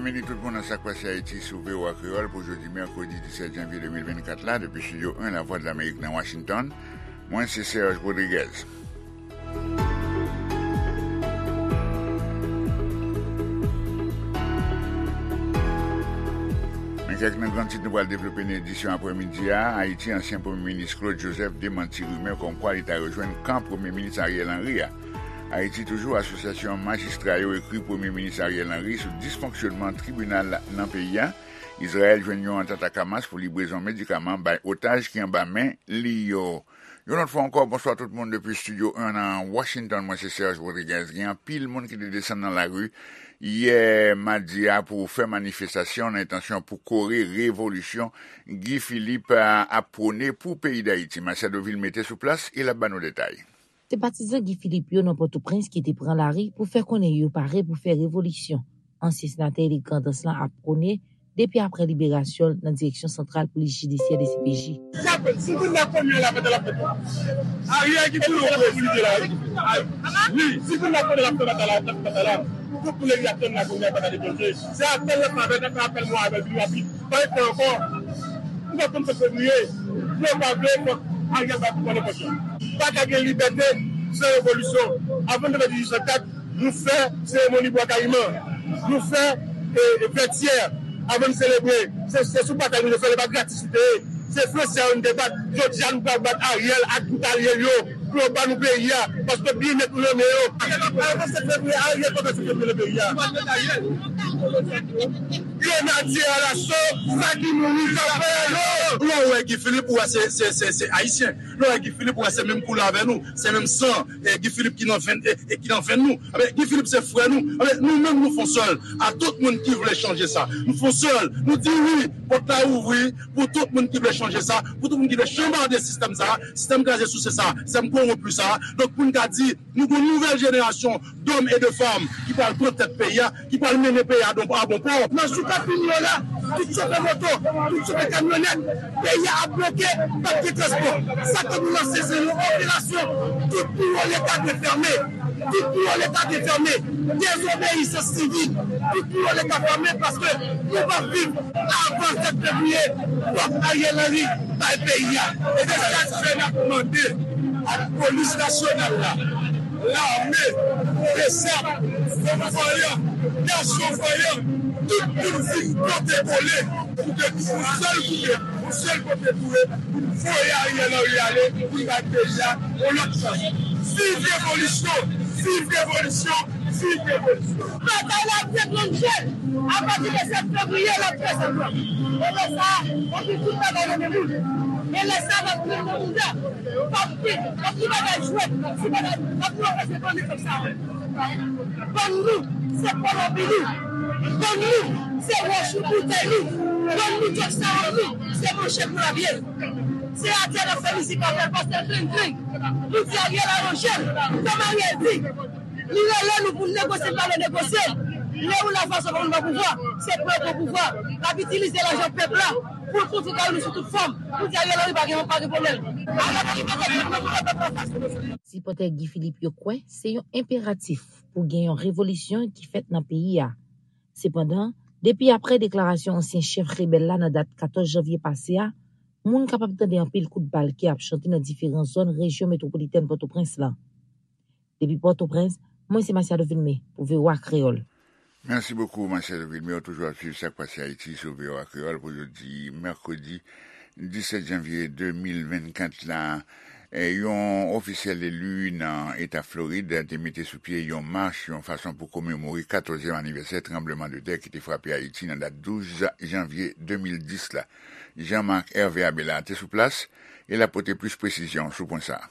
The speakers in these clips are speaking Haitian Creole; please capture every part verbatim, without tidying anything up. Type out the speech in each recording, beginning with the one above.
Byenvini tout moun nan Sa k Pase Ayiti sou V O A Kreyòl pou jodi mèkredi disèt janvye de mil vennkat la, depi Estidyo en Lavwadlamerik nan Washington. Mwen se Serge Rodriguez. Men kèk nan gran tit nou pral devlope nan edisyon aprèmidi a. Ayiti, ansyen Premye Minis Claude Joseph demanti rimè kòmkwa li ta rejwenn kan Premye Minis Ariel Henry a. Ayiti toujou, asosyasyon majistra yo ekri Premye Minis Ariel Henry sou disfonksyonman tribinal nan peyi a. Izrayèl jwenn yon antant ak Hamas pou librezon medikaman bay otaj ki anba men li yo. Yon lòt fwa ankò, bonswa tout moun depi Estidyo en nan Washington. Mwen se Serge Rodriguez. Gen anpil moun ki te desann nan lari yè madi a pou fè manifestasyon nan entansyon pou kore revolisyon Guy Philippe a, ap pwone pou peyi Dayiti. Machado Vilmé te sou plas e l ap ba nou detay. Se patizan Guy Philippe yo nan Pòtoprens ki te pran lari pou fè konnen yo pare pou fè revolisyon. Ansyen senatè Erik Grandans lan ap pwone depi aprè liberasyon l nan Direksyon Santral Polis Jidisyè, D C P J. Sa fè, si moun nan konn yo la, fè l ap fè tou. Ariel ki pou nou prezide la, wi. Wi, si moun nan konn yo la, fè batay la, fè batay la. Tout moun depi ap tann la, kounye a pa ka deplose. Se apèl la, fè apèl, fè apèl mwen avè l pi rapid. Pa gen tan ankò. Nou pa konn sèt fevriye. Vle ou pa vle, fòk Ariel ba tout moun enpòtan. Pa ka gen libète san revolisyon. Avan n te fè dizuit san kat, nou fè seremoni Bwa Kayiman. Nou fè, e, e, Vètyè. Avan n selebre. Se, se sou batay nou te fè l, e pa gratis li te ye. Se Fransè a yo n te bat. Jodi a, nou pral bat Ariel ak tout alye l yo pou yo ba nou peyi a. Paske byenèt nou nan men yo. Avan sèt fevriye, Ariel pa fè sèt fevriye nan peyi a. Grenadye alaso, sa ki mouri, sa fè yo. Lè w wè Guy Philippe, ou wè se, se, se, se Ayisyen. Lè w wè Guy Philippe, ou wè se menm koulè avè nou, se menm san, e, Guy Philippe ki nan venn, e, e ki nan venn nou. Ebyen, Guy Philippe se frè nou. Ebyen, nou menm nou fon sèl. A tout moun ki vle chanje sa, nou fon sèl. Nou di wi, pòt la ouvri pou tout moun ki vle chanje sa, pou tout moun ki vle chanbade sistèm sa, sistèm kraze souse sa, sistèm kowonpi sa. Donk, pou n ka di, nou gen yon nouvèl jenerasyon dòm e de fanm ki pral pran tèt peyi a, ki pral mennen peyi a don, a bon pò. Nan jou k ap vini yo la, tout chofè moto, tout chofè kamyonèt, peyi a ap bloke, p ap gen transpò. Sa ke nou lanse, se yon operasyon. Tout biwo Leta dwe fèmen. Tout biwo Leta dwe fèmen. Dezobeyisans sivik. Tout biwo Leta fèmen paske nou p ap viv avan sèt fevriye. Fòk Ariel Henry bay peyi a. E se sa k fè n ap mande ak polis nasyonal la, lame, besap, fanm vanyan, gason vanyan, tout moun vin pote kole pou ke nou yon sèl koupe, yon sèl kote pou ye, pou n voye Ariel Henry ale, pou n bay peyi a yon lòt chans. Viv revolisyon! Viv revolisyon! Viv revolisyon! Batay la ap deklannche apati de sèt fevriye, l ap fè sanblan. E lè sa a, w ap gen tout bagay nan men moun. E lè sa a, w ap pran nan bouda. W ap gen, w ap gen bagay jwèt, w ap gen bagay, w ap gen bagay se bann nèg sa yo. Bann nou, se Kolonbi nou. Bann nou, se wòch nou, boutèy nou. Bann nou, djòb sa yo nou, se manchèt nou l ap ye. Se atè n ap fè mizik avè l, pastè Grenn Grenn. Nou di Ariel a yon jèn, kòm Ariel di. Li rele nou pou n negosye, n pa vle negosye. Lè ou la fason pou nou nan pouvwa, se pou yo pran pouvwa. N ap itilize lajan pèp la pou l kontre kay nou sou tout fòm. Pou di Ariel Henry pa gen, pa gen pwoblèm. Ariel Henry pa gen pwoblèm. Sipòtè Guy Philippe yo kwè se yon enperatif pou gen yon revolisyon ki fèt nan peyi a. Sepandan, depi aprè deklarasyon ansyen chèf rebèl la nan dat katòz janvye pase a, moun kapab tande anpil kout bal ki ap chante nan diferan zòn rejyon metwopolitèn Pòtoprens lan. Depi Pòtoprens, mwen se Masiado Vilmé pou V O A Kreyòl. Mèsi bokou, Masiado Vilmé. Ou toujou ap swiv Sa k Pase Ayiti sou V O A Kreyòl pou jodi mèkredi disèt janvye de mil vennkat la. E, yon ofisyèl eli nan eta Florid te mete sou pye yon mach, yon fason pou komemore katòzyèm anivèsè tranblemanntè ki te frape Ayiti nan dat douz janvye de mil dis la. Jean Marc Hervé Abela te sou plas e l ap pote plis presizyon sou pwen sa a.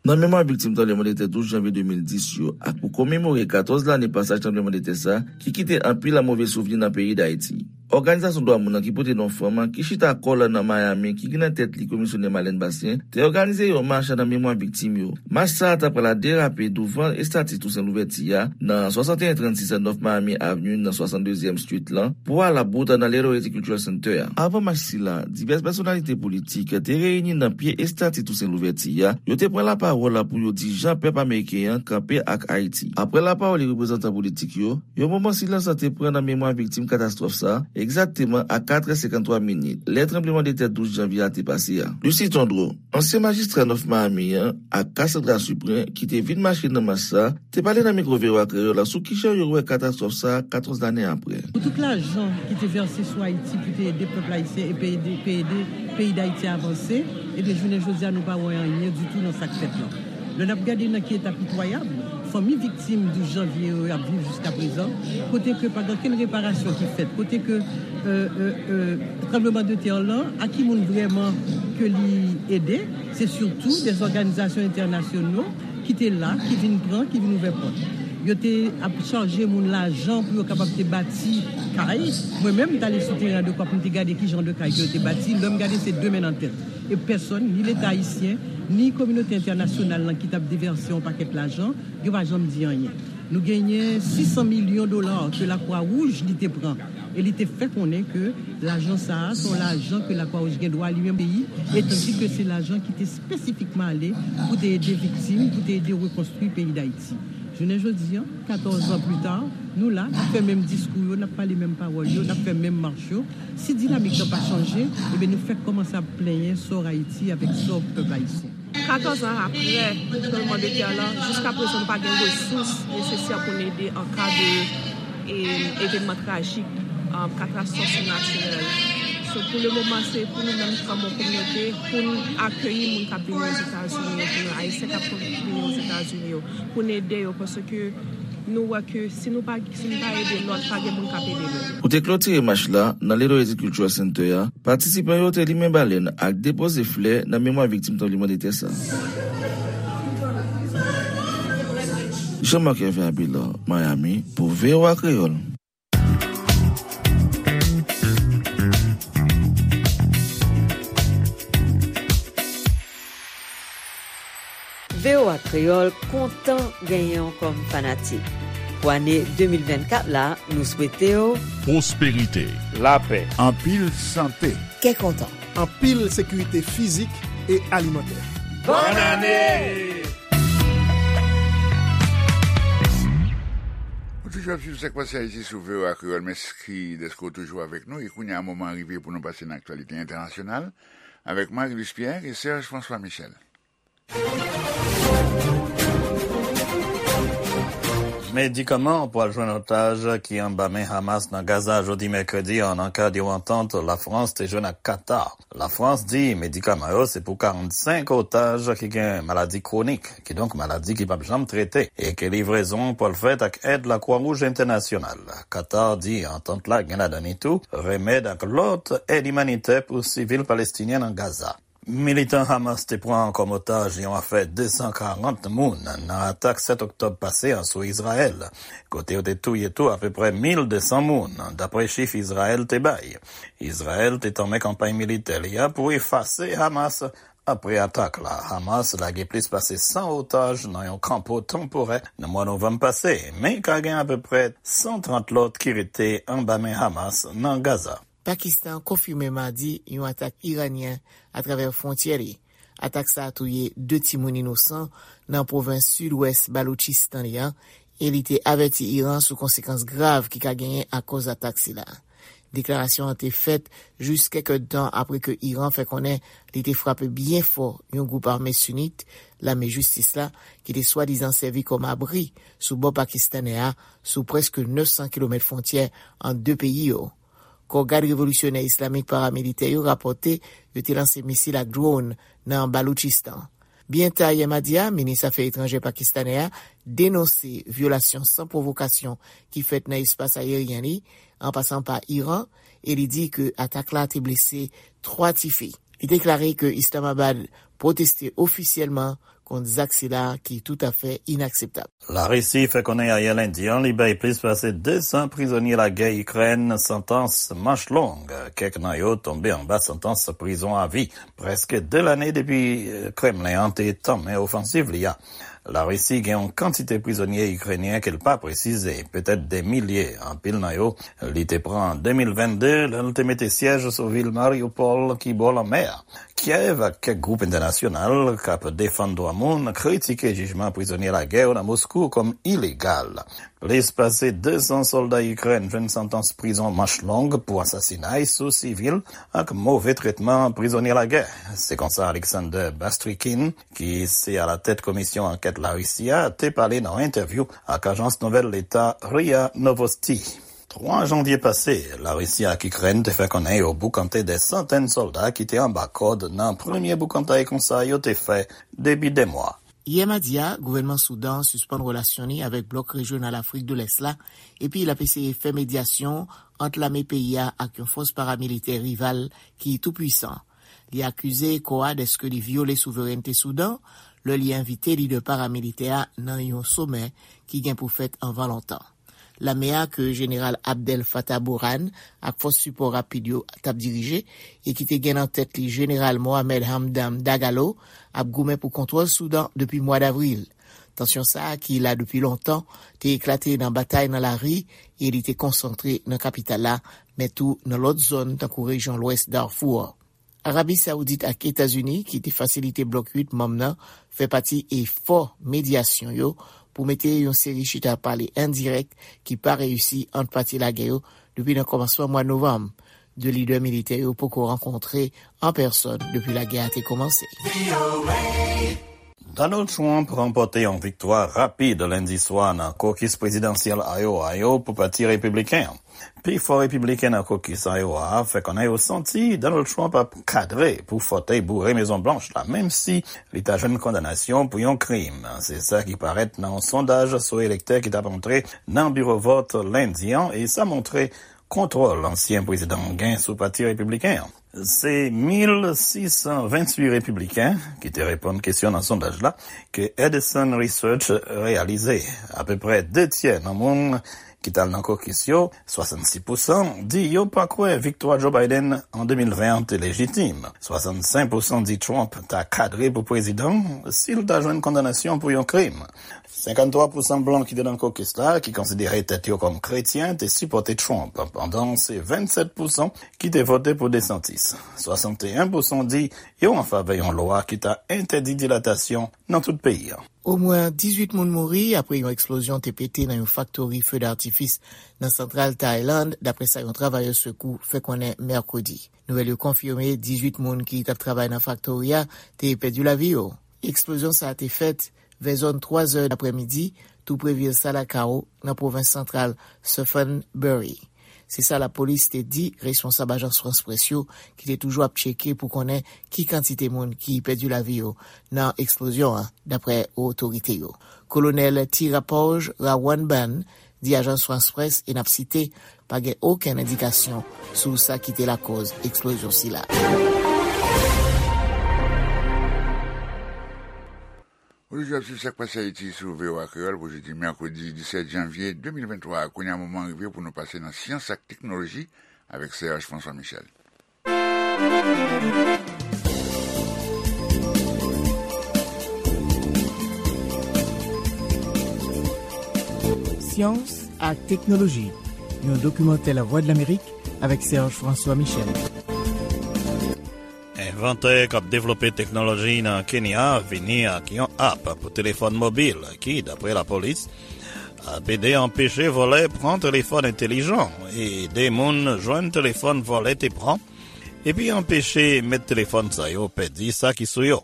Nan memwa viktim tranblemanntè douz janvye de mil dis yo, ak pou komemore katòz lane pasaj tranblemanntè sa a, ki kite anpil move souvni nan peyi Dayiti. òganizasyon dwa moun nan ki pote non fanm, ki chita kò l nan Miami, ki gen nan tèt li Komisyonè Marlène Bastien, te òganize yon mach nan memwa viktim yo. Mach sa a ta pral derape douvan estati Tousen Louvèti a, nan swasanteyen trannsis North Miami Avenue, nan swasanndezyèm Street lan, pou al bout nan Little Haiti Cultural Center a. Avan mach sila, divès pèsonalite politik te reyini nan pye estati Tousen Louvèti a, yo te pran lapawòl pou yo di jan pèp ameriken an kanpe ak Ayiti. Apre lapawòl reprezantan politik yo, yon moman silans te pran nan memwa viktim katastwòf sa, egzakteman a katrè senkanntwa minit, lè tranblemanntè douz janvye a te pase a. Lucie Tondreau, ansyen majistra North Miami an ak Cassandra Suprin, ki te vin mache nan mach sa, te pale nan mikwo V O A Kreyòl sou kijan yo wè katastwòf sa a katòz lane apre. Pou tout lajan ki te vèse sou Ayiti pou te ede pèp ayisyen e pe ede, pe ede peyi Dayiti avanse, ebyen, jounen jodi a, nou pa wè anyen ditou nan sa k fèt lan. Lè n ap gade nan ki eta pitwayab fanmi viktim douz janvye yo ap viv jiska prezan, kote ke pa gen okenn reparasyon ki fèt, kote ke, euh, euh, euh, tranblemanntè lan, a ki moun vrèman ke li ede, se sitou de òganizasyon entènasyonal ki te la, ki vin pran, ki vin ouvè pòt. Yo te ap chaje moun lajan pou yo kapab te bati kay. Mwen menm, m t ale sou teren an de kwa pou m te gade ki jan de kay ke yo te bati. Lè m gade, se de men nan tèt. E pèsòn, ni Leta ayisyen, ni kominote entènasyonal lan ki t ap devèse yon pakèt lajan, yo pa janm di anyen. Nou genyen sis san milyon dola ke Lakwa Wouj li te pran. E li te fè konnen ke lajan sa a, se yon lajan ke Lakwa Wouj gen dwa li menm peyi, e tandis ke se lajan ki te espesifikman ale pou te ede viktim, pou te ede rekonstwi peyi Dayiti. Jounen jodi an, katòz an pli ta, nou la, n ap fè menm diskou yo, n ap pale menm pawòl yo, n ap fè menm mach yo. Si dinamik lan pa chanje, ebyen, nou fèk kòmanse ap plenyen sò Ayiti avèk sò pèp ayisyen. Katòz an apre tranblemanntè lan, jiska prezan nou pa gen resous nesesè pou n ede an ka de, e, evènman trajik, um, katastwòf natirèl. So, pou le moman, se pou nou menm kòm yon kominote, pou n akeyi moun k ap vini Ozetazini yo, pou nou Ayisyen k ap vini Ozetazini yo, pou n ede yo, paske nou wè ke si nou pa, si nou pa ede lòt, pa gen moun k ap ede nou. Pou te klotire mach la, nan Little Haiti Cultural Center a, patisipan yo te limen balèn ak depoze flè nan memwa viktim tranblemanntè sa. Jean-Marc Hervé Abelard, Miami, pou V O A Kreyòl. V O A Kreyòl kontan genyen w kòm fanatik. Pou ane de mil vennkat la, nou swete w pwosperite, lapè, anpil sante, kè kontan, anpil sekirite fizik e alimantè. Bòn ane! Ou toujou ap swiv Sak Pase Ayiti sou V O A Kreyòl. Mèsi dèske w toujou avèk nou. E kounye a, moman an rive pou nou pase nan aktyalite entènasyonal avèk Marie-Luce Pierre e Serge François Michel. Medikaman pral jwenn otaj ki anba men Hamas nan Gaza jodi mèkredi an, nan kad yon antant Lafrans te jwenn ak Katar. Lafrans di medikaman yo se pou karannsenk otaj ki gen maladi kwonik, kidonk maladi ki p ap janm trete, e ke livrezon pral fèt ak èd Lakwa Wouj Entènasyonal. Katar di antant la gen ladan li tou remèd ak lòt èd imanitè pou sivil palestinyen nan Gaza. Militan Hamas te pran kòm otaj yon afè de san karant moun nan atak sèt oktòb pase a sou Izrayèl, kote yo te touye tou apeprè mil de san moun, dapre chif Izrayèl te bay. Izrayèl te tanmen kanpay militè li a pou efase Hamas apre atak la. Hamas lage plis pase san otaj nan yon kanpo tanporè nan mwa novanm pase, men ka gen apeprè san trant lòt ki rete anba men Hamas nan Gaza. Pakistan konfime madi yon atak iranyen atravè fwontyè li. Atak sa a touye de timoun inosan nan pwovens sidwès Baloutchistan li an, e li te avèti Iran sou konsekans grav ki ka genyen akoz atak sila. Deklarasyon an te fèt jis kèk èdtan apre ke Iran fè konnen li te frape byen fò yon gwoup ame sinit, Lame Jistis la, ki te swadizan sèvi kòm abri sou bò pakistanè a, sou prèske nèf san kilomèt fwontyè ant de peyi yo. Kò Gad Revolisyonè Islamik paramilitè yo rapòte yo te lanse misil ak dwòn nan Baloutchistan. Byen ta yè madi a, minis afè etranjè pakistanè a denonse vyolasyon san pwovokasyon ki fèt nan espas ayeryen li, an pasan pa Iran, e li di ke atak la te blese twa tifi. Li deklare ke Islamabad pwoteste ofisyèlman kont zak sila ki toutafè inakseptab. Larisi fè konnen ayè lendi an li bay plis pase de san prizonye lagè Ikrèn santans manch long. Kèk nan yo tonbe anba santans prizon avi, prèske de lane depi, eh, Kremlen an te tanmen ofansiv li a. Larisi gen yon kantite prizonye ikrenyen ke l pa presize, petèt de milye. Anpil nan yo, li te pran an de mil vennde, lè l te mete syèj sou vil Mariupol ki bò lanmè a. Kyèv ak kèk gwoup entènasyonal k ap defann dwa moun kritike jijman prizonye lagè yo nan Moskou kòm ilegal. Plis pase de san sòlda Ikrèn jwenn santans prizon manch long pou asasinay sou sivil ak move tretman prizonye lagè. Se konsa Alexander Bastrikin, ki se alatèt komisyon ankèt Larisi a, te pale nan yon entèvyou ak ajans nouvèl leta ria Novosti. Twa janvye pase, Larisi ak Ikrèn te fè konnen yo boukante de santèn sòlda ki te anba kòd nan premye boukantay konsa yo te fè depi de mwa. Yè madi a, gouvènman Soudan sispann relasyon li avèk blòk rejyonal Afrik de Lès la, epi l ap eseye fè medyasyon ant lame peyi a ak yon fòs paramilitè rival ki tou pwisan. Li akize kò a dèske li vyole souverènte Soudan lè li envite lidè paramilitè a nan yon somè ki gen pou fèt anvan lontan. Lame a ke Jeneral Abdel Fattah Burhan ak fòs sipò rapid yo t ap dirije e ki te gen nan tèt li Jeneral Mohamed Hamdan Dagalo ap goumen pou kontwòl Soudan depi mwa davril. Tansyon sa a ki la depi lontan te eklate nan batay nan lari e li te konsantre nan kapital la, men tou nan lòt zòn tankou rejyon lwès Darfou an. Arabi Sawoudit ak Etazini, ki te fasilite blòk uit manm nan, fè pati efò medyasyon yo pou mete yon seri chita pale endirèk ki pa reyisi ant pati lagè yo depi nan kòmansman mwa novanm. De lidè militè yo poko rankontre an pèsòn depi lagè a te kòmanse. Donald Trump ranpòte yon viktwa rapid lendi swa nan kokis prezidansyèl Iowa yo pou pati repibliken an. Pifò repibliken nan kokis Iowa a fè konnen yo santi Donald Trump ap kadre pou fòtèy boure Mezon Blanch la, menm si li ta jwenn kondanasyon pou yon krim. Se sa ki parèt nan yon sondaj sou elektè ki t ap antre nan biwo vòt lendi an, e sa montre kontwòl ansyen prezidan an gen sou pati repibliken an. Se mil sis san venntuit repibliken ki te reponn kesyon nan sondaj la ke Edison Research reyalize. Apeprè de tyè nan moun ki t al nan kokis yo, swasannsis pousan, di yo pa kwè viktwa Joe Biden an de mil ven an te lejitim. Swasannsenk pousan di Trump ta kadre pou prezidan si l ta jwenn kondanasyon pou yon krim. Senkanntwa pousan blan ki te nan kokis la, ki konsidere tèt yo kòm kretyen, te sipòte Trump, pandan se vennsèt pousan ki te vote pou DeSantis. Swasanteyen pousan di yo an favè yon lwa ki ta entèdi dilatasyon nan tout peyi a. Omwen dizuit moun mouri apre yon eksplozyon te pete nan yon faktori fe datifis nan santral Tayland, dapre sa yon travayè sekou fè konnen mèkredi. Nouvèl yo konfime dizuit moun ki t ap travay nan faktori a te pèdi lavi yo. Eksplozyon sa a te fèt vè zòn twa zè daprèmidi, tou pre vil Salakau, nan pwovens santral Suphan Buri. Se sa lapolis te di responsab ajans Frans Près yo, ki te toujou ap tcheke pou konnen ki kantite moun ki pèdi lavi yo nan eksplozyon an, dapre otorite yo. Kolonèl Tirapoj Rawanban di ajans Frans Près, e n ap site, pa gen okenn endikasyon sou sa ki te lakòz eksplozyon sila. Ou toujou ap swiv Sa k Pase Ayiti sou V O A Kreyòl pou jodi mèkredi disèt janvye de mil venntwa a. Kounye a, moman an rive pou nou pase nan syans ak teknoloji avèk Serge François Michel. Syans ak teknoloji, yon dokimantè Lavwadlamerik avèk Serge François Michel. Envantè k ap devlope teknoloji nan Kenya vini ak yon app pou telefòn mobil ki, dapre lapolis, ap ede anpeche vòlè pran telefòn entelijan e ede moun jwenn telefòn vòlè te pran, epi anpeche mèt telefòn sa yo pèdi sa ki sou yo.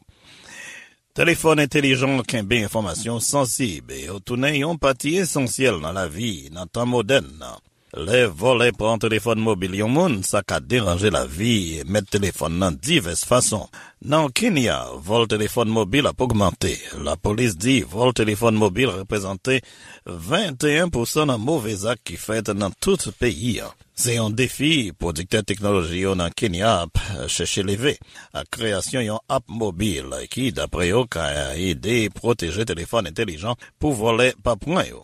Telefòn entelijan kenbe enfòmasyon sansib e yo tounen yon pati esansyèl nan lavi nan tan modèn nan. Lè vòlè pran telefòn mobil yon moun, sa ka deranje lavi mèt telefòn nan divès fason. Nan Kenya, vòl telefòn mobil ap ogmante. Lapolis di vòl telefòn mobil reprezante venteyen pousan nan move zak ki fèt nan tout peyi a. Se yon defi pwodiktè teknoloji yo nan Kenya ap chèche leve, ak kreyasyon yon app mobil ki, dapre yo, ka ede pwoteje telefòn entèlijan pou vòlè pa pran yo.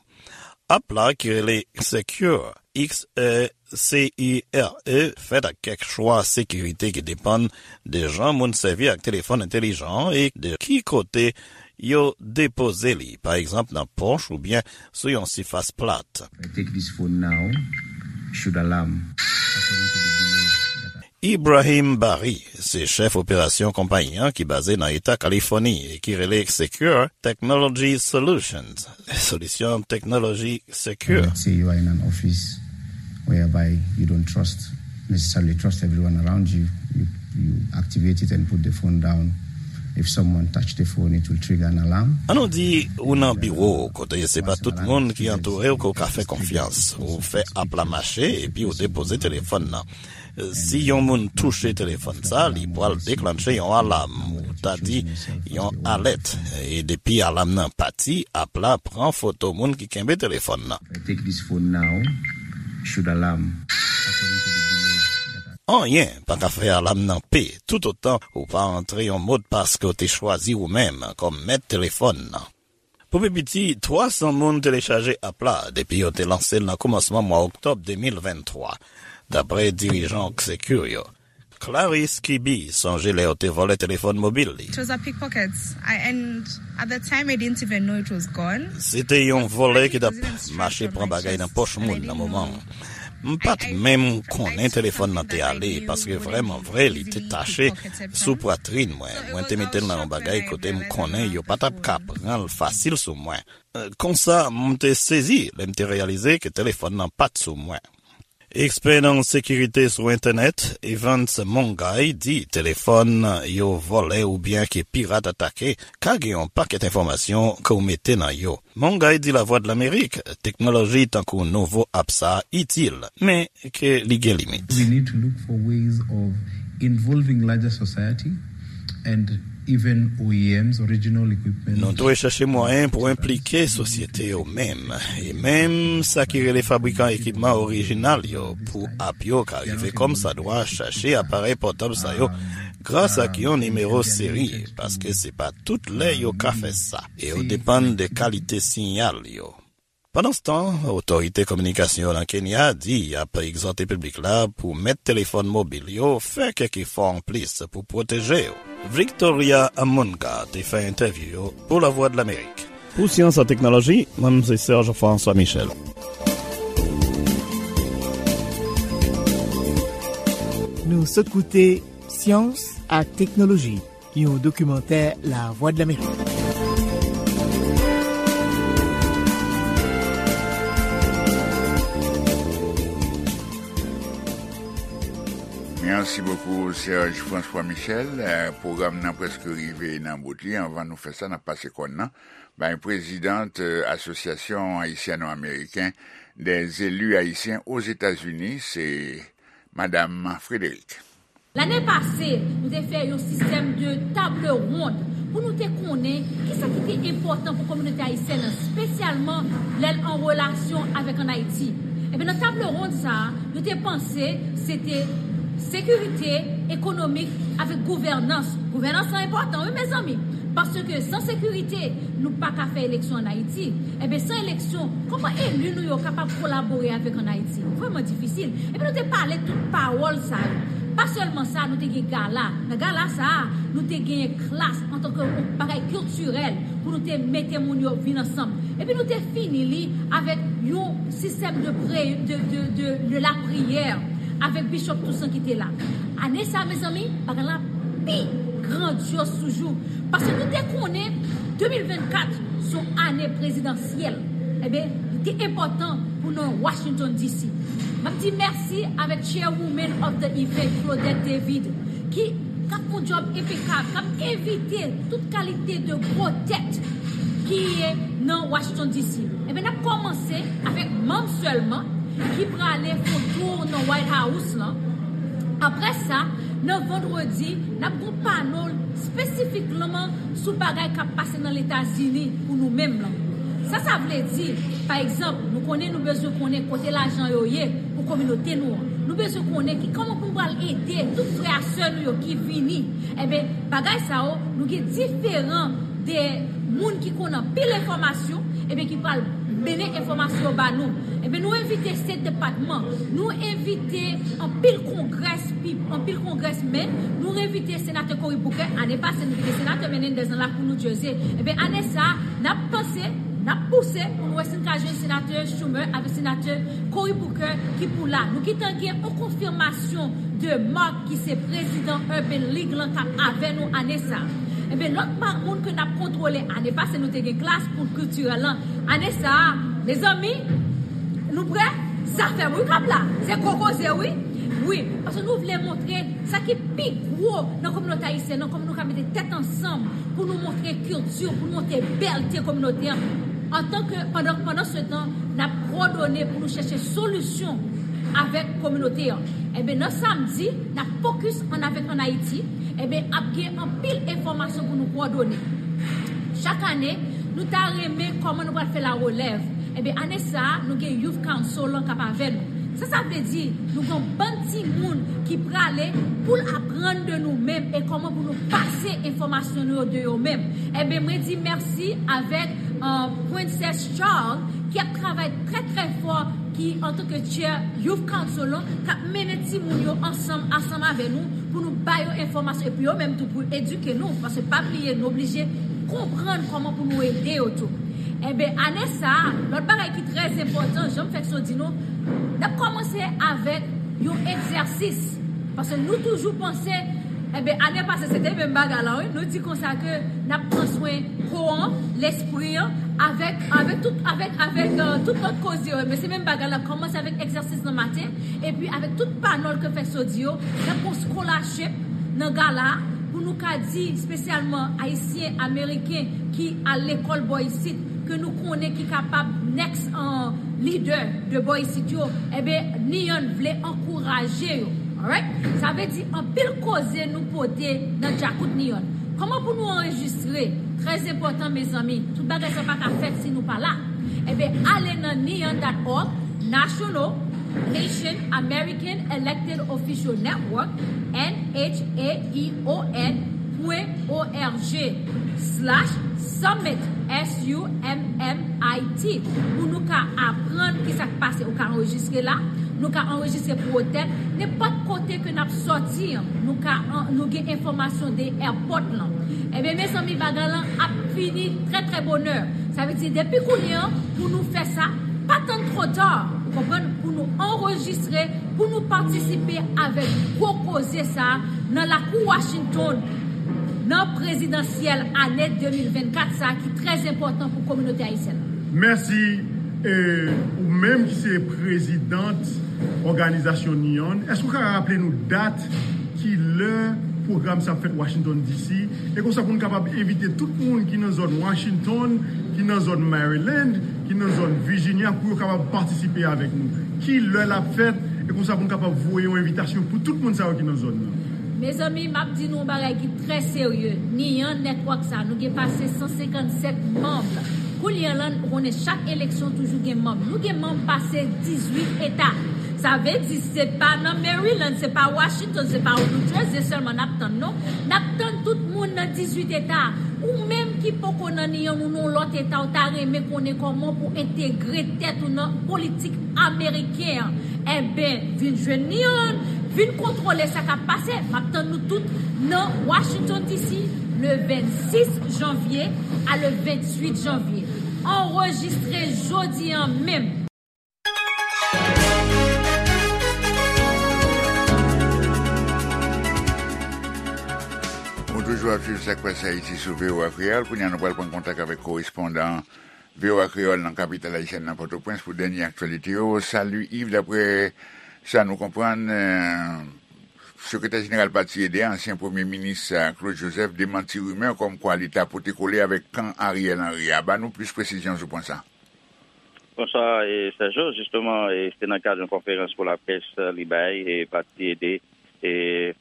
App la, ki rele Secure, X E C U R E, fèt ak kèk chwa sekirite ki depann de jan moun sèvi ak telefòn entèlijan an e de ki kote yo depoze li, pa egzanp nan pòch oubyen sou yon sifas plat. I take this phone now, should alarm, according to the below. Ibrahim Bari se chèf operasyon konpayi an ki baze nan Eta Kalifòni e ki rele Secure Technology Solutions, solisyon teknoloji sekir. Let's say you are in an office whereby you don't trust, necessarily trust everyone around you. You, you activate it and put the phone down. If someone touch the phone, it will trigger an alarm. An nou di ou nan biwo kote se pa tout moun ki antoure w ke w ka fè konfyans. Ou fè app la mache epi ou depoze telefòn nan. Si yon moun touche telefòn sa, li pral deklanche yon alam, ou ta di yon alèt. E depi alam nan pati, app la pran foto moun ki kenbe telefòn nan. Take this phone now, should alarm, according to the below. Anyen pa ka fè alam nan pe, toutotan ou pa antre yon modpas ke w te chwazi ou menm kòm mèt telefòn nan. Pou pi piti, twa san moun telechaje app la depi yo te lanse l nan kòmansman mwa oktòb de mil venntwa, dapre dirijan Secure yo. Clarisse Kibi sonje lè yo te vòlè telefòn mobil li. It was a pickpockets. I, and at the time, I didn't even know it was gone. Se te yon vòlè ki t ap mache pran bagay nan pòch moun nan moman an. M pa t menm konnen telefòn nan te ale, paske vrèman vre, li te tache sou pwatrin mwen. Mwen te mete l nan yon bagay kote m konnen yo pa t ap ka pran l fasil sou mwen. Konsa, m te sezi lè m te reyalize ke telefòn nan pa t sou mwen. Ekspè nan sekirite sou entènèt, Evans Mongay, di telefòn yo vòlè oubyen ke pirat atake ka gen yon pakèt enfòmasyon ke w mete nan yo. Mongay di Lavwadlamerik teknoloji tankou nouvo app sa a itil, men ke li gen limit. We need to look for ways of involving larger society and even O E Ms, original equipment. Nou dwe chèche mwayen pou enplike sosyete yo menm, e menm sa ki rele fabrikan ekipman orijinal yo, pou app yo ka rive kòmsadwa chache aparèy pòtab sa yo, gras ak yon nimewo seri, paske se pa tout lè yo ka fè sa, e yo depann de kalite siyal yo. Pandanstan, otorite kominikasyon nan Kenya di y ap egzòte piblik la pou mèt telefòn mobil yo fè kèk efò anplis pou pwoteje yo. Victoria Amunga te fè entèvyou yo pou Lavwadlamerik. Pou Syans ak Teknoloji, mwen se Serge François Michel. Nou sot koute Syans ak Teknoloji, yon dokimantè Lavwadlamerik. Mèsi bokou, Serge François Michel. Eh, pwogram nan prèske rive nan bout li. Anvan nou fè sa, n ap pase kòn nan bay prezidant, eh, Asosyasyon Ayisyano-Ameriken dè Zeli Ayisyen Ozetazini, se Madam Frédéric. Lane pase, nou te fè yon sistèm de table ronde pou nou te konnen kisa ki te enpòtan pou kominote ayisyèn nan, espesyalman lè l an relasyon avèk ann Ayiti. Ebyen, nan table ronde sa a, nou te panse se te sekirite, ekonomik, avèk gouvènans. Gouvènans lan enpòtan, wi, mezanmi, paske san sekirite, nou pa ka fè eleksyon ann Ayiti. Ebyen, san eleksyon, kòman eli nou yo kapab kolabore avèk ann Ayiti? Vrèman difisil. Epi nou te pale tout pawòl sa yo. Pa sèlman sa, nou te gen gala. Nan gala sa a, nou te genyen klas antanke yon bagay kiltirèl pou nou te mete moun yo vin ansanm. Epi nou te fini li avèk yon sistèm de pre-, de, de, de, de lapriyè avèk Bishop Toussaint ki te la. Ane sa, mezanmi, bagay la pi grandyòz toujou. Paske nou te konnen de mil vennkat se yon ane prezidansyèl. Ebyen, li te enpòtan pou nou Washington D C. M ap di mèsi avèk Chairwoman of the Event, Claudette David, ki, k ap fè yon djòb enpekab, k ap envite tout kalite de gwo tèt ki ye nan Washington D C. Ebyen, n ap kòmanse avèk manm sèlman. ki prale fè yon tou nan White House lan. Apre sa, nan vandredi, n ap gen yon panel espesifikman sou bagay k ap pase nan Letazini pou nou menm lan. Sa sa vle di, pa egzanp, nou konnen nou bezwen konnen kote lajan yo ye pou kominote nou an. Nou bezwen konnen ki kòman pou nou pral ede tout frè a sè nou yo ki vini. Enben, bagay sa yo, nou gen diferan de moun ki konn anpil enfòmasyon, enben, ki pral mennen enfòmasyon ba nou. Enben, nou envite State Department, nou envite anpil kongrès, anpil kongrèsmen, nou envite senatè Cory Booker. Ane pase, nou te gen senatè Menendez nan lakou New Jersey. Enben, ane sa a, n ap panse, n ap pouse pou nou wè si n ka jwenn senatè Schumer avèk senatè Cory Booker ki pou la. Nou gentan gen yon konfimasyon de Mark ki se prezidan Urban League lan k ap avè nou ane sa a. Enben, lòt pa moun ke n ap kontwole, ane pase nou te gen klas pou kiltirèl lan. Ane sa a, mezanmi, nou prè? Zafè wi k ap la. Se gwo koze wi. Wi, paske nou vle montre sa ki pi gwo nan kominote ayisyèn nan, kòman nou ka mete tèt ansanm pou nou montre kilti, pou nou montre bèlte kominote an. Antanke, pandan, pandan se tan, n ap pwodone pou nou chèche solisyon avèk kominote an. Enben, nan samdi, n ap fokis ann avèk ann Ayiti. Enben, ap gen anpil enfòmasyon pou nou pwodone. Chak ane, nou ta renmen kòman nou pral fè la relèv. Enben, ane sa a, nou gen Youth Council lan k ap avè nou. Sa sa vle di, nou gen yon bann timoun ki prale pou l aprann de nou menm e kòman pou nou pase enfòmasyon nou yo de yo menm. Enben, mwen di mèsi avèk, euh, Princess Charles ki ap travay trè, trè fò, ki antanke chair Youth Council lan, k ap mennen timoun yo ansanm, ansanm avè nou, pou nou ba yo enfòmasyon, epi yo menm tou pou edike nou, paske pa bliye, nou oblije konprann kòman pou nou ede yo tou. Enben, ane sa a, lòt bagay ki trè enpòtan, jan m fèk so di nou, n ap kòmanse avèk yon egzèsis. Paske nou toujou panse, enben, ane pase, se te menm bagay la, wi. Nou di konsa ke n ap pran swen kò an, lespri an, avèk, avèk tout, avèk, avèk, euh, tout lòt koze yo. Men se menm bagay la, kòmanse avèk egzèsis nan maten, epi avèk tout panèl ke fèk so di yo, n ap gon scholarship nan gala a, pou nou ka di espesyalman Ayisyen, Ameriken ki al lekòl bò isit, ke nou konnen ki kapab next, euh, leader de bò isit yo, enben, Nian vle ankouraje yo. Alright? Sa vle di anpil koze nou pote nan djakout Nian. Kòman pou nou anrejistre? Trè enpòtan, mezanmi. Tout bagay sa pa ka fèt si nou pa la. Enben, ale nan nian dot org, National Haitian American Elected Official Network, N H A E O N pwen O R G slash summit, S U M M I T, pou nou ka aprann ki sa k pase. Ou ka anrejistre la, nou ka anrejistre pou otèl, nenpòt kote ke n ap sòti an, nou ka an-, nou gen enfòmasyon de airport lan. Ebyen, mezanmi, bagay lan ap fini trè, trè bonè. Sa vle di, depi kounye an, pou nou fè sa, pa tann twò ta, ou konprann, pou nou anrejistre, pou nou patisipe avèk gwo koze sa a nan lakou Washington, nan prezidansyèl ane de mil vennkat sa a ki trè enpòtan pou kominote ayisyèn nan. Mèsi, e, ou menm ki se prezidant òganizasyon Nian, èske w ka raple nou dat, ki lè pwogram sa ap fèt Washington D C? E konsa pou n kapab envite tout moun ki nan zòn Washington, ki nan zòn Maryland, ki nan zòn Virginia, pou yo kapab patisipe avèk nou. Ki lè l ap fèt? E konsa pou n kapab voye yon envitasyon pou tout moun sa yo ki nan zòn nan. Mezanmi, m ap di nou yon bagay ki trè serye. Nian Network sa, nou gen pase san senkannsèt manm. Kounye a la, ou konnen chak eleksyon toujou gen manm. Nou gen manm pase dizuit eta. Sa vle di, se pa nan Maryland, se pa Washington, se pa New Jersey sèlman n ap tann, non. N ap tann tout moun nan dizuit eta. Ou menm ki poko nan Nian, ou nan lòt eta, ou ta renmen konnen kòman pou entegre tèt ou nan politik ameriken an. Enben, vin jwenn Nian, vin kontwole sa k ap pase. M ap tann nou tout nan Washington D C, le vennsis janvye a le ventuit janvye. Anrejistre jodi an menm. Ou toujou ap swiv Sa k Pase Ayiti sou V O A Kreyòl. Kounye a, nou pral pran kontak avèk korespondan V O A Kreyòl nan kapital ayisyèn nan, Pòtoprens, pou dènye aktyalite yo. Salut Yves, daprè sa nou konprann, eh, sekretè jeneral pati E D, ansyen premye minis, eh, Claude Joseph, demanti rimè kòmkwa li ta pote kole avèk kan Ariel Henry a. Ba nou plis presizyon sou pwen sa. Bonswa, e, Sergio. Jisteman, e, se nan kad yon konferans pou laprès, e, li bay, e, pati ede, e,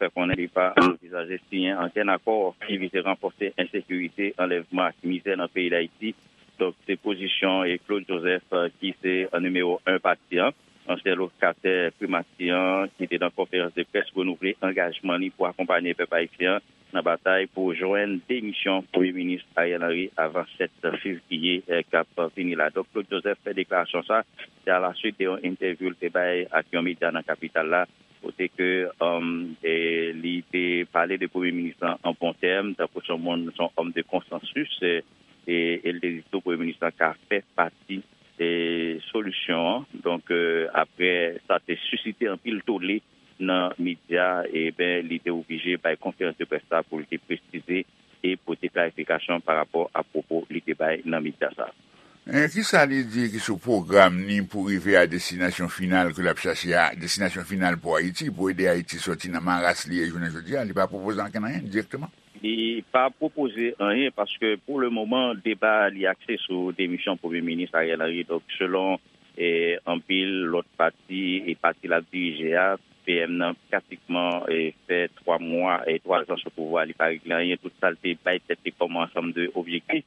fè konnen li pa anvizaje siyen ankenn akò ki vize ranfòse ensekirite, anlèvman ak mizè nan peyi Dayiti. Donk, se pozisyon, e, Claude Joseph, e, ki se, e, nimewo en pati an, ansyen lokatè primati an, ki te nan konferans de près renouvle angajman li pou akonpanye pèp ayisyen an nan batay pou jwenn demisyon Premye Minis Ariel Henry avan sèt fevriye, eh, k ap vini la. Donk, Claude Joseph fè deklarasyon sa, se alaswit de yon entèvyou l te bay ak yon medya nan kapital la, kote ke, um, e, li te pale de Premye Minis lan an bon tèm, tankou se yon moun, se yon òm de konsansis, e, e, e l te di tou Premye Minis lan ka fè pati, e, solisyon an. Donk, e, apre, sa te sisite anpil tole nan medya, e ben, li te oblije bay konferans de près sa pou l te presize e pote klarifikasyon pa rapò a pwopo li te bay nan medya sa. E kisa li di ki sou pwogram ni pou rive a destinasyon final ke l ap chache a, destinasyon final pou Ayiti, pou ede Ayiti sòti nan maras li ye jounen jodi a? Li pa pwopoze ankenn anyen dirèkteman? Li pa pwopoze anyen paske pou le moman, deba li akse sou demisyon Premye Minis Ariel Henry. Donk, selon, e, anpil lòt pati e pati l ap dirije a, P M nan pratikman, e, fè twa mwa, e, twa zan sou pouvwa, li pa regle anyen. Tout sa l te bay tèt li kòm ansanm de objektif,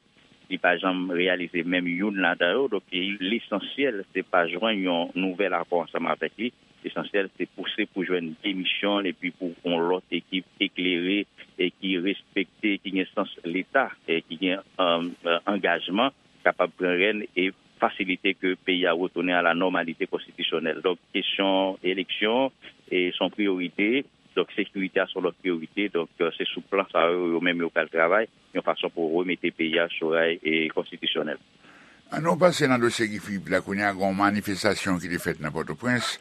li pa janm reyalize menm youn ladan yo. Donk, e, lesansyèl, se pa jwenn yon nouvèl akò ansanm avèk li. Lesansyèl, se pouse pou jwenn demisyon l epi pou yon lòt ekip eklere e ki respekte, ki gen sans Leta, e ki gen, e, e, angajman, kapab pran rèn e fasilite ke peyi a retounen a la nòmalite konstitisyonèl. Donk, kesyon eleksyon, e, se yon priyorite. Donk, sekirite a se yon lòt priyorite. Donk, e, se sou plan sa yo, yo menm yo pral travay yon fason pou remete peyi a sou ray e konstitisyonèl. An nou pase nan dosye Guy Philippe la, kounye a gen yon manifestasyon ki te fèt nan Pòtoprens,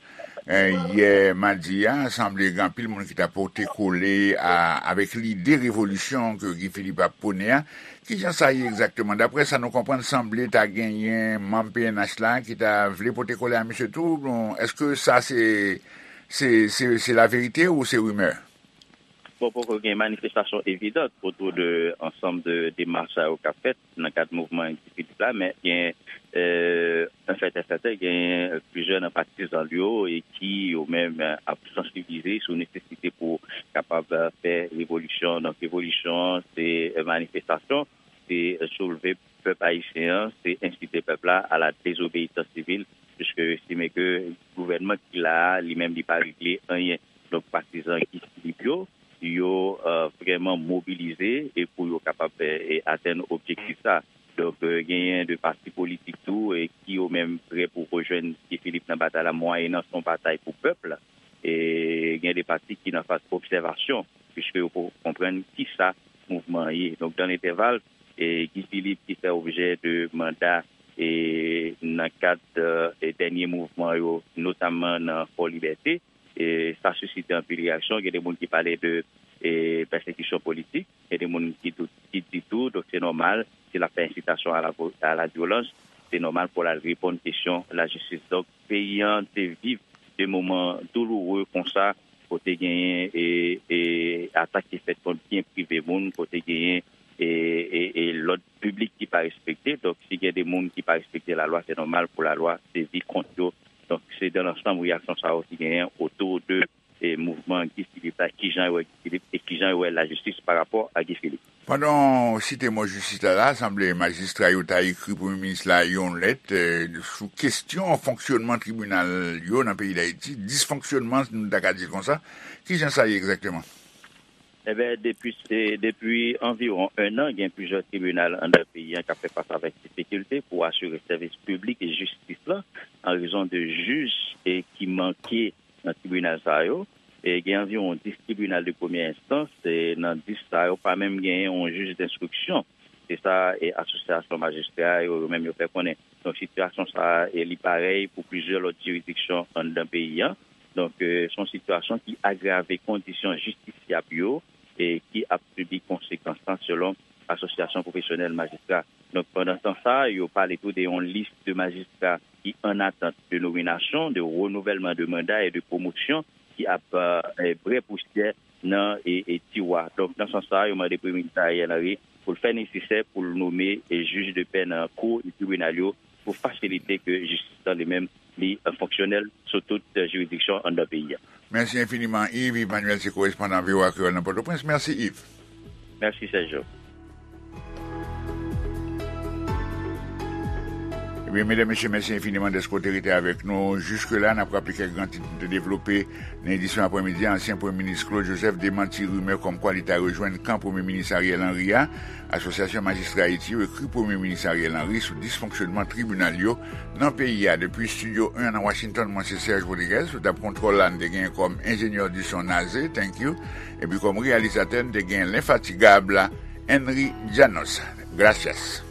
e, yè madi a, sanble gen anpil moun ki ta pote kole a, avèk lide revolisyon ke Guy Philippe ap pwone a. Kijan sa ye egzakteman? Daprè sa nou konprann, sanble ta genyen manm P N H la ki ta vle pote kole a misye tou. Bon, èske sa se, se, se, se laverite ou se rimè? Bon, poko gen manifestasyon evidan otou de ansanm de demach sa yo k ap fèt nan kad mouvman Guy Philippe la, men gen, e, an fèt, an fèt, gen plizyè nan patizan l yo e ki yo menm, e, ap sansibilize sou nesesite pou kapab, e, fè revolisyon. Donk, revolisyon an, se, e, manifestasyon, se, e, soulve pèp ayisyen an, se ensite pèp la a la dezobeyisans sivil, piske yo estime ke gouvènman ki la a, li menm, li pa regle anyen. Donk, patizan Guy Philippe yo, yo, e, vrèman mobilize e pou yo kapab, e, e, atenn objektif sa. Donk, e, genyen de pati politik tou, e, ki yo menm prè pou rejwenn Guy Philippe nan batay la, mwayennan se yon batay pou pèp la. E gen de pati ki nan faz obsèvasyon, piske yo poko konprann kisa mouvman an ye. Donk, dan lentèval, e, Guy Philippe ki fè objè de manda, e, nan kad, e, dènye mouvman yo, notamman nan Fò Libète, e, sa sisite anpil reyaksyon. Gen de moun ki pale de, e, pèsekisyon politik, gen de moun ki, tou, ki di tou, donk se nòmal, si l ap fè ensitasyon a la vo-, a la vyolans, se nòmal pou l al reponn kesyon lajistis. Donk, peyi an te viv de moman douloure konsa, kote genyen, e, e, atak ki fèt kont byen prive moun, kote genyen, e, e, e lòd piblik ki pa respekte. Donk, si gen de moun ki pa respekte lalwa, se nòmal pou lalwa sezi kont yo. Donk, se dan lansanm reyaksyon sa yo ki genyen otou de, e, mouvman Guy Philippe la, kijan yo wè Guy Philippe e kijan yo wè lajistis pa rapò a Guy Philippe. Pandan w site mo jistis la, la, sanble majistra yo ta ekri Premye Minis la yon lèt, e, sou kesyon fonksyònman tribinal yo nan peyi Dayiti, disfonksyònman, nou ta ka di l konsa. Kijan sa ye egzakteman? Eben, depi, e, depi anviwon en an, gen plizyè tribinal anndan peyi a k ap fè fas avèk difikilte pou asire sèvis piblik e jistis la, an rezon de jij, e, ki manke nan tribinal sa yo. E, gen anviwon dis tribinal de premyè enstans, e, nan dis sa yo, pa menm genyen yon jij denstriksyon. Se sa, e, asosyasyon majistra yo, yo menm yo fè konnen. Donk, sitiyasyon sa a, e, li parèy pou plizyè lòt jiridiksyon anndan peyi a. Donk, e, se yon sitiyasyon ki agrave kondisyon jistisyab yo, e, ki ap sibi konsekans lan, selon Asosyasyon Pwofesyonèl Majistra. Donk, pandan tan sa, yo pale tou de yon lis de majistra ki an atant de nominasyon, de renouvèlman de manda e de pwomosyon ki ap, e, e, bwè pousyè nan, e, e, tiwa. Donk, nan sans sa, yo mande Premye Minis Ariel Henry pou l fè nesesè pou l nome, e, jij de pè nan kou e tribinal yo pou fasilite ke jistis lan li menm li fonksyonèl sou tout jiridiksyon anndan peyi a. Mèsi enfiniman, Yves. Yves Manuel se korespondan V O A Kreyòl nan Pòtoprens. Mèsi, Yves. Mèsi, Sergio. Ebyen, medam, mesye, mèsi enfiniman dèske w te rete avèk nou jiske la. N ap raple kèk gran tit nou te devlope nan edisyon aprèmidi a. Ansyen Premye Minis Claude Joseph demanti rimè kòmkwa li ta rejwenn kan Premye Minis Ariel Henry a. Asosyasyon Majistra Ayiti yo ekri Premye Minis Ariel Henry sou disfonksyonman tribinal yo nan peyi a. Depi Estidyo en nan Washington, mwen se Serge Rodriguez. Sou tab kontwòl la, n te genyen kòm enjenyè di son Naze, thank you. Epi kòm reyalizatè, n te genyen lenfatigab Henry Janos. Gracias.